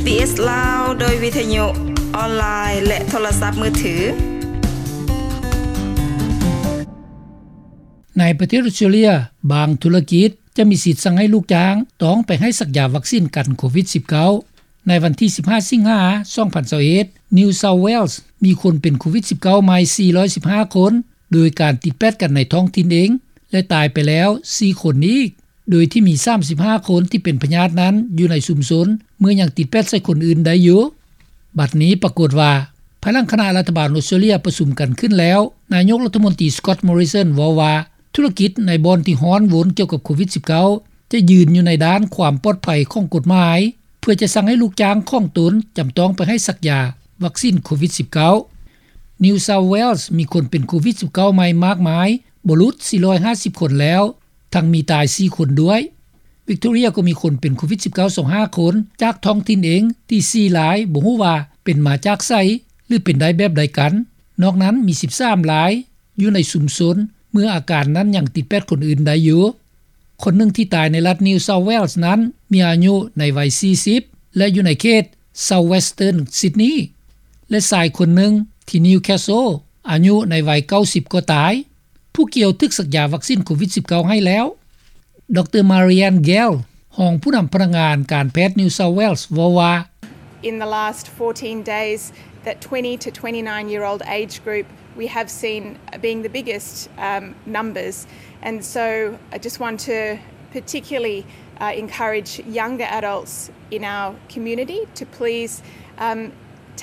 ບີບີຊີລາວ ໂດຍວິທະຍຸອອນລາຍ ແລະ ໂທລະສັບມືຖື. ໃນປະເທດອົດສະຕຣາເລຍ, ບາງທຸລະກິດຈະມີສິດສັ່ງໃຫ້ລູກຈ້າງຕ້ອງໄປໃຫ້ສັກຢາວັກຊິນກັນໂຄວິດສິບເກົ້າ. ໃນວັນທີສິບຫ້າ ສິງຫາ ສອງພັນຊາວເອັດ, New South Wales ມີຄົນເປັນໂຄວິດສິບເກົ້າໃໝ່ສີ່ຮ້ອຍສິບຫ້າຄົນ, ໂດຍການຕິດແປດກັນໃນທ້ອງຖິ່ນເອງ ແລະ ຕາຍໄປແລ້ວສີ່ຄົນອີກ, ໂດຍທີ່ມີສາມສິບຫ້າຄົນທີ່ເປັນພະຍາດນັ້ນຢູ່ໃນຊຸມຊົນ ເມື່ອຍັງຕິດແປດໃສ່ຄົນອື່ນໄດ້ຢູ່. ບັດນີ້ປາກົດວ່າ, ພາຍຫຼັງຄະນະລັດຖະບານອົດສະຕຣາເລຍປະຊຸມກັນຂຶ້ນແລ້ວ, ນາຍົກລັດຖະມົນຕີ Scott Morrison ເວົ້າວ່າ ທຸລະກິດໃນບ່ອນທີ່ຮ້ອນວົນກ່ຽວກັບໂຄວິດສິບເກົ້າ ຈະຢືນຢູ່ໃນດ້ານຄວາມປອດໄພຂອງກົດໝາຍ ເພື່ອຈະສັ່ງໃຫ້ລູກຈ້າງຂອງຕົນຈຳຕ້ອງໄປໃຫ້ສັກຢາວັກຊິນໂຄວິດສິບເກົ້າ. New South Wales ມີຄົນເປັນໂຄວິດສິບເກົ້າໃໝ່ມາກມາຍບໍ່ຫຼຸດສີ່ຮ້ອຍຫ້າສິບຄົນແລ້ວ, ທັງມີຕາຍສີ່ຄົນດ້ວຍ. Victoria ກໍມີຄົນເປັນໂຄວິດສິບເກົ້າຊາວຫ້າຄົນ ຈາກທ້ອງຖິ່ນເອງທີ່ສີ່ລາຍ ບໍ່ຮູ້ວ່າເປັນມາຈາກໃສ ຫຼື ເປັນໄດ້ແບບໃດກັນ. ນອກນັ້ນມີສິບສາມລາຍ ຢູ່ໃນຊຸມຊົນ ເມື່ອອາການນັ້ນຍັງຕິດແປດຄົນອື່ນໄດ້ຢູ່. ຄົນໜຶ່ງທີ່ຕາຍໃນລັດ New South Wales ນັ້ນ ມີອາຍຸໃນໄວສີ່ສິບ ແລະ ຢູ່ໃນເຂດ South Western Sydney ແລະ ຊາຍຄົນໜຶ່ງທີ່ Newcastle ອາຍຸໃນໄວເກົ້າສິບກໍຕາຍ. ຜູ້ກ່ຽວຖືກສັກຢາວັກຊິນໂຄວິດສິບເກົ້າໃຫ້ແລ້ວ. ດຣ Marianne Gale ຮອງຜູ້ນຳພະນັກງານການແພດ New South Wales ເວົ້າວ່າ, In the last fourteen days, that twenty to twenty-nine year old age group we have seen being the biggest, um, numbers. And so I just want to particularly, uh, encourage younger adults in our community to please, um,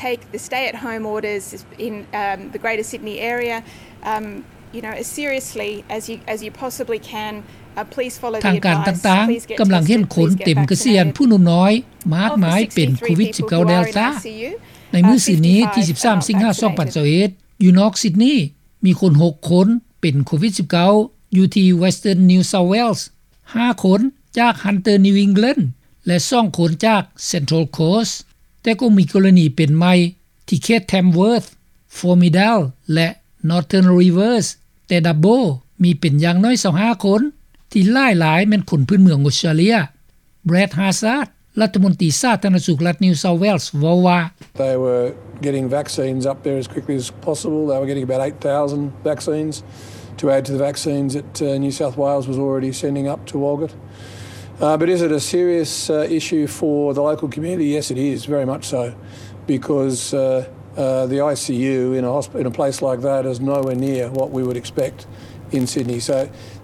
take the stay at home orders in, um, the Greater Sydney area, um, you know, as seriously as you, as you possibly can. Uh, please follow the advice. ທາງການຕ່າງໆກຳລັງເຫັນຄົນເຕັມກະຊຽນຜູ້ໜຸ່ມນ້ອຍ ມາກມາຍເປັນໂຄວິດສິບເກົ້າ Delta. ໃນມື້ຊືນນີ້ທີສິບສາມ ສິງຫາ ສອງພັນຊາວເອັດ ຢູ່ນອກຊິດນີ ມີຄົນຫົກຄົນເປັນໂຄວິດສິບເກົ້າ ຢູ່ທີ່ Western New South Wales, ຫ້າຄົນຈາກ Hunter New England ແລະ ສອງຄົນຈາກ Central Coast. ແຕ່ກໍມີກໍລະນີເປັນໃໝ່ທີ່ເຂດ Tamworth, Formidale ແລະ Northern Rivers, ແຕ່ Dubbo ມີເປັນຢ່າງໜ້ອຍຊາວຫ້າຄົນ ທີ່ຫຼາຍໆແມ່ນຄົນພື້ນເມືອງອົດສະຕຣາເລຍ. Brad Hazzard ລັດຖະມົນຕີສາທາລະນະສຸກລັດ New South Wales ເວົ້າວ່າ, They were getting vaccines up there as quickly as possible. They were getting about eight thousand vaccines to add to the vaccines that, uh, New South Wales was already sending up to Walgett. Uh, but is it a serious, uh, issue for the local community? Yes, it is, very much so, because, uh, uh, the I C U in a hosp-, in a place like that is nowhere near what we would expect in Sydney. So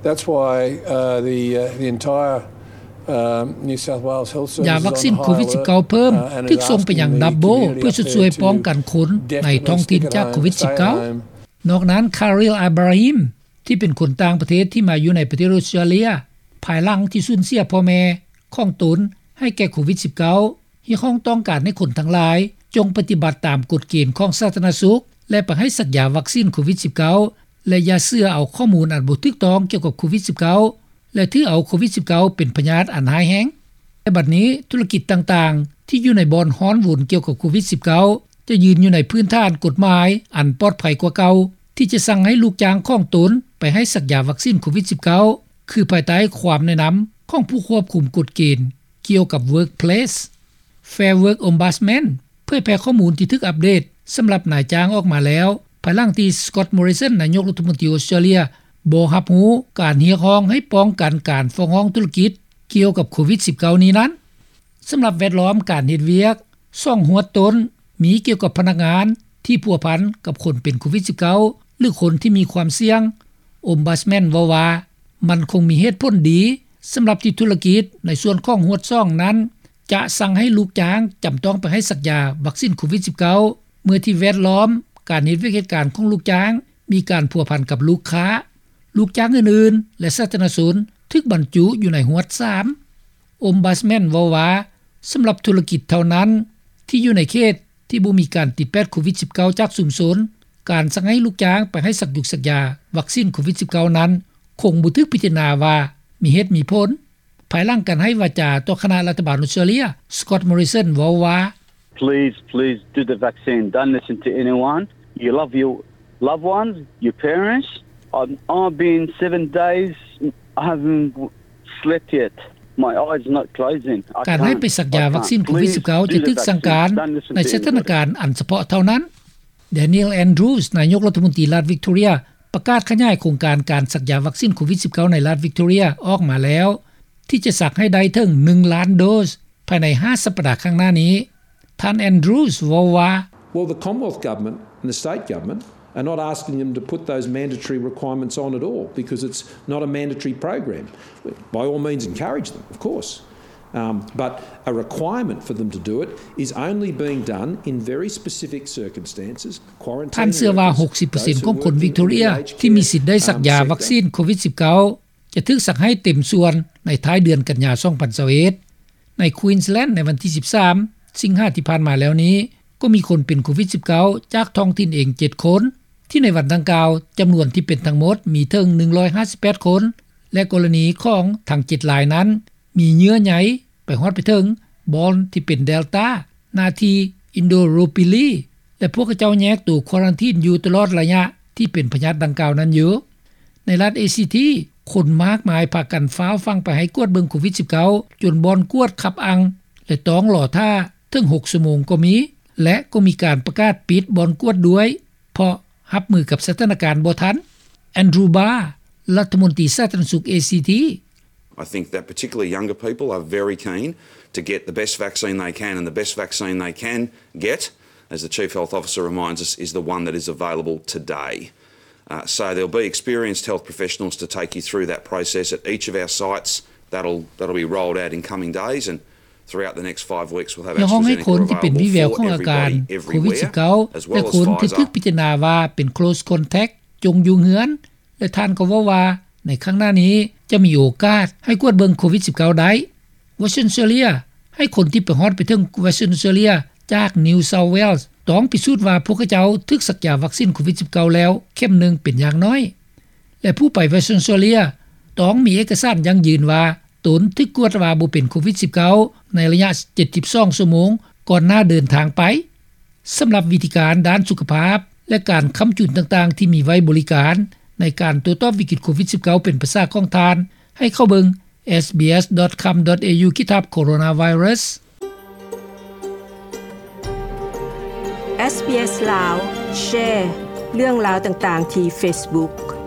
that's why, uh, the, uh, the entire, um, New South Wales Health Service is on high alert. ຢາວັກຊິນໂຄວິດສິບເກົ້າເພີ່ມ ຖືກສົ່ງໄປຍັງ Dubbo ເພື່ອຊົດຊ່ວຍປ້ອງກັນຄົນໃນທ້ອງຖິ່ນຈາກໂຄວິດສິບເກົ້າ. ນອກນັ້ນ Khalil Ibrahim ທີ່ເປັນຄົນຕ່າງປະເທດທີ່ມາຢູ່ໃນປະເທດອົດສະຕຣາເລຍ ພາຍຫຼັງທີ່ສູນເສຍພໍ່ແມ່ຂອງຕົນໃຫ້ແກ່ໂຄວິດສິບເກົ້າ ຮຽກຮ້ອງຕ້ອງການໃຫ້ຄົນທັງຫຼາຍ ຈົ່ງປະຕິບັດຕາມກົດເກນຂອງສາທາລະນະສຸກ ແລະ ໄປໃຫ້ສັກຢາວັກຊິນໂຄວິດສິບເກົ້າ ແລະ ຢ່າເຊື່ອເອົາຂໍ້ມູນອັນບໍ່ຖືກຕ້ອງກ່ຽວກັບໂຄວິດສິບເກົ້າ ແລະ ຖືເອົາໂຄວິດສິບເກົ້າເປັນພະຍາດອັນຮ້າຍແຮງ. ແຕ່ບັດນີ້ທຸລະກິດຕ່າງໆທີ່ຢູ່ໃນບ່ອນຮ້ອນວຸນກ່ຽວກັບໂຄວິດສິບເກົ້າ ຈະຢືນຢູ່ໃນພື້ນຖານກົດໝາຍອັນປອດໄພກວ່າເກົ່າ ທີ່ຈະສັ່ງໃຫ້ລູກຈ້າງຂອງຕົນໄປໃຫ້ສັກຢາວັກຊິນໂຄວິດສິບເກົ້າ ຄືພາຍໃຕ້ຄວາມແນະນຳຂອງຜູ້ຄວບຄຸມກົດເກນກ່ຽວກັບ Workplace. Fair Work Ombudsman ເຜີຍແຜ່ຂໍ້ມູນທີ່ຖືກອັບເດດສຳລັບນາຍຈ້າງອອກມາແລ້ວ ພາຍຫຼັງທີ່ Scott Morrison ນາຍົກລັດຖະມົນຕີອົດສະຕຣາເລຍ ບໍ່ຮັບຮູ້ການຮຽກຮ້ອງໃຫ້ປ້ອງກັນການຟ້ອງຮ້ອງທຸລະກິດກ່ຽວກັບໂຄວິດສິບເກົ້ານີ້ນັ້ນ. ສຳລັບແວດລ້ອມການເຮັດວຽກ ຊ່ອງຫວດຕົ້ນມີກ່ຽວກັບພະນັກງານທີ່ພົວພັນກັບຄົນເປັນໂຄວິດສິບເກົ້າ ຫຼື ຄົນທີ່ມີຄວາມສ່ຽງ. Ombudsman ເວົ້າວ່າ ມັນຄົງມີເຫດຜົນດີສຳລັບທີ່ທຸລະກິດໃນສ່ວນຂອງຫວດຊ່ອງນັ້ນ ຈະສັ່ງໃຫ້ລູກຈ້າງຈຳຕ້ອງໄປໃຫ້ສັກຢາວັກຊິນໂຄວິດສິບເກົ້າ ເມື່ອທີ່ແວດລ້ອມການເຮັດວຽກເຮັດການຂອງລູກຈ້າງມີການພົວພັນກັບລູກຄ້າ, ລູກຈ້າງອື່ນໆ ແລະ ສາທາລະນະຊົນ ຖືກບັນຈຸຢູ່ໃນຫວດສາມ. Ombudsman ເວົ້າວ່າ ສຳລັບທຸລະກິດເທົ່ານັ້ນທີ່ຢູ່ໃນເຂດທີ່ບໍ່ມີການຕິດແປດໂຄວິດສິບເກົ້າຈາກຊຸມຊົນ, ການສັ່ງໃຫ້ລູກຈ້າງໄປໃຫ້ສັກຢຸກສັກຢາວັກຊິນໂຄວິດສິບເກົ້ານັ້ນ ຄົງບໍ່ຖືກພິຈາລະນາວ່າມີເຫດມີຜົນ. ພາຍຫຼັງການໃຫ້ວາຈາຕໍ່ຄະນະລັດຖະບານອົດສະຕຣາເລຍ, Scott Morrison ເວົ້າວ່າ, Please, please do the vaccine. Don't listen to anyone. You love your loved ones, your parents. I've, I've been seven days, I haven't slept yet. My eyes are not closing. I can't. ການໃຫ້ໄປສັກຢາວັກຊີນໂຄວິດສິບເກົ້າ ຈະຖືກສັ່ງການໃນສະຖານະການອັນສະເພາະເທົ່ານັ້ນ. Daniel Andrews ນາຍົກລັດຖະມົນຕີລັດ Victoria ປະກາດຂະຫຍາຍໂຄງການການສັກຢາວັກຊີນໂຄວິດສິບເກົ້າ ໃນລັດ Victoria ອອກມາແລ້ວ ທີ່ຈະສັກໃຫ້ໄດ້ເຖິງ ໜຶ່ງລ້ານໂດສ ພາຍໃນຫ້າສັບປະດາຂ້າງໜ້ານີ້. ທ່ານ Andrews ເວົ້າວ່າ Well, the Commonwealth Government and the state government are not asking them to put those mandatory requirements on at all, because it's not a mandatory program. By all means, encourage them, of course. Um, but a requirement for them to do it is only being done in very specific circumstances. ທ່ານເຊື່ອວ່າ ຫົກສິບເປີເຊັນຂອງຄົນວິກຕໍເຣຍທີ່ມີສິດໄດ້ສັກຢາວັກຊີນໂຄວິດສິບເກົ້າ ຈະຖືກສັກໃຫ້ເຕັມສ່ວນໃນທ້າຍເດືອນກັນຍາ ສອງພັນຊາວເອັດ. ໃນ Queensland ໃນວັນທີ ສິບສາມ ສິງຫາທີ່ຜ່ານມາແລ້ວນີ້ ກໍມີຄົນເປັນໂຄວິດສິບເກົ້າ ຈາກທ້ອງຖິ່ນເອງ ເຈັດຄົນ ທີ່ໃນວັນດັ່ງກ່າວ ຈຳນວນທີ່ເປັນທັງໝົດມີເຖິງ ໜຶ່ງຮ້ອຍຫ້າສິບແປດຄົນ ແລະ ກໍລະນີຂອງທັງ ເຈັດລາຍນັ້ນ ມີເຍື່ອໃຍໄປຮອດໄປເຖິງບ່ອນທີ່ເປັນ Delta ໜ້າທີ່ Indooroopilly ແລະ ພວກເຂົາເຈົ້າແຍກໂຕຄວາຣັນທີນຢູ່ຕະຫຼອດໄລຍະທີ່ເປັນພະຍາດດັ່ງກ່າວນັ້ນຢູ່. ໃນລັດ ACT ຄົນມາກມາຍພາກັນຟ້າວຝັ່ງໄປໃຫ້ກວດເບິ່ງໂຄວິດສິບເກົ້າ ຈົນບ່ອນກວດຄັບອັ່ງ ແລະ ຕ້ອງລໍຖ້າເຖິງ ຫົກຊົ່ວໂມງກໍມີ ແລະ ກໍມີການປະກາດປິດບ່ອນກວດດ້ວຍ ເພາະຮັບມືກັບສະຖານະການບໍ່ທັນ. Andrew Barr ລັດຖະມົນຕີສາທາລະນະສຸກ ACT I think that particularly younger people are very keen to get the best vaccine they can, and the best vaccine they can get, as the Chief Health Officer reminds us, is the one that is available today. Uh, so there'll be experienced health professionals to take you through that process at each of our sites. That'll, that'll be rolled out in coming days, and throughout the next five weeks, we'll have AstraZeneca available for everybody, everywhere. ຢາກຮ້ອງໃຫ້ຄົນທີ່ເປັນວີແວວຂອງອາການໂຄວິດສິບເກົ້າ ແລະ ຄົນທີ່ຖືກພິຈາລະນາວ່າເປັນ close contact ຈົ່ງຢູ່ເຮືອນ ແລະ ທ່ານກໍເວົ້າວ່າ ໃນຄັ້ງໜ້ານີ້ຈະມີໂອກາດໃຫ້ກວດເບິ່ງໂຄວິດສິບເກົ້າໄດ້. Western Australia ໃຫ້ຄົນທີ່ໄປຮອດໄປເຖິງ Western Australia ຈາກ New South Wales ຕ້ອງພິສູດວ່າພວກເຂົາເຈົ້າຖືກສັກຢາວັກຊີນໂຄວິດສິບເກົ້າແລ້ວເຂັມໜຶ່ງເປັນຢ່າງໜ້ອຍ ແລະ ຜູ້ໄປ Western Australia ຕ້ອງມີເອກະສານຢັ້ງຢືນວ່າຕົນຖືກກວດວ່າບໍ່ເປັນໂຄວິດສິບເກົ້າ ໃນໄລຍະ ເຈັດສິບສອງຊົ່ວໂມງ ກ່ອນໜ້າເດີນທາງໄປ. ສຳລັບວິທີການດ້ານສຸຂະພາບ ແລະ ການຄ້ຳຈຸນຕ່າງໆ ທີ່ມີໄວ້ບໍລິການໃນການໂຕ້ຕອບວິກິດໂຄວິດສິບເກົ້າ ເປັນປະຊາຂອງທ່ານ ໃຫ້ເຂົ້າເບິ່ງ sbs.com.au ຂີດຖາບ coronavirus. SBS ລາວ ແຊເລື່ອງລາວຕ່າງໆ ທີ່ Facebook.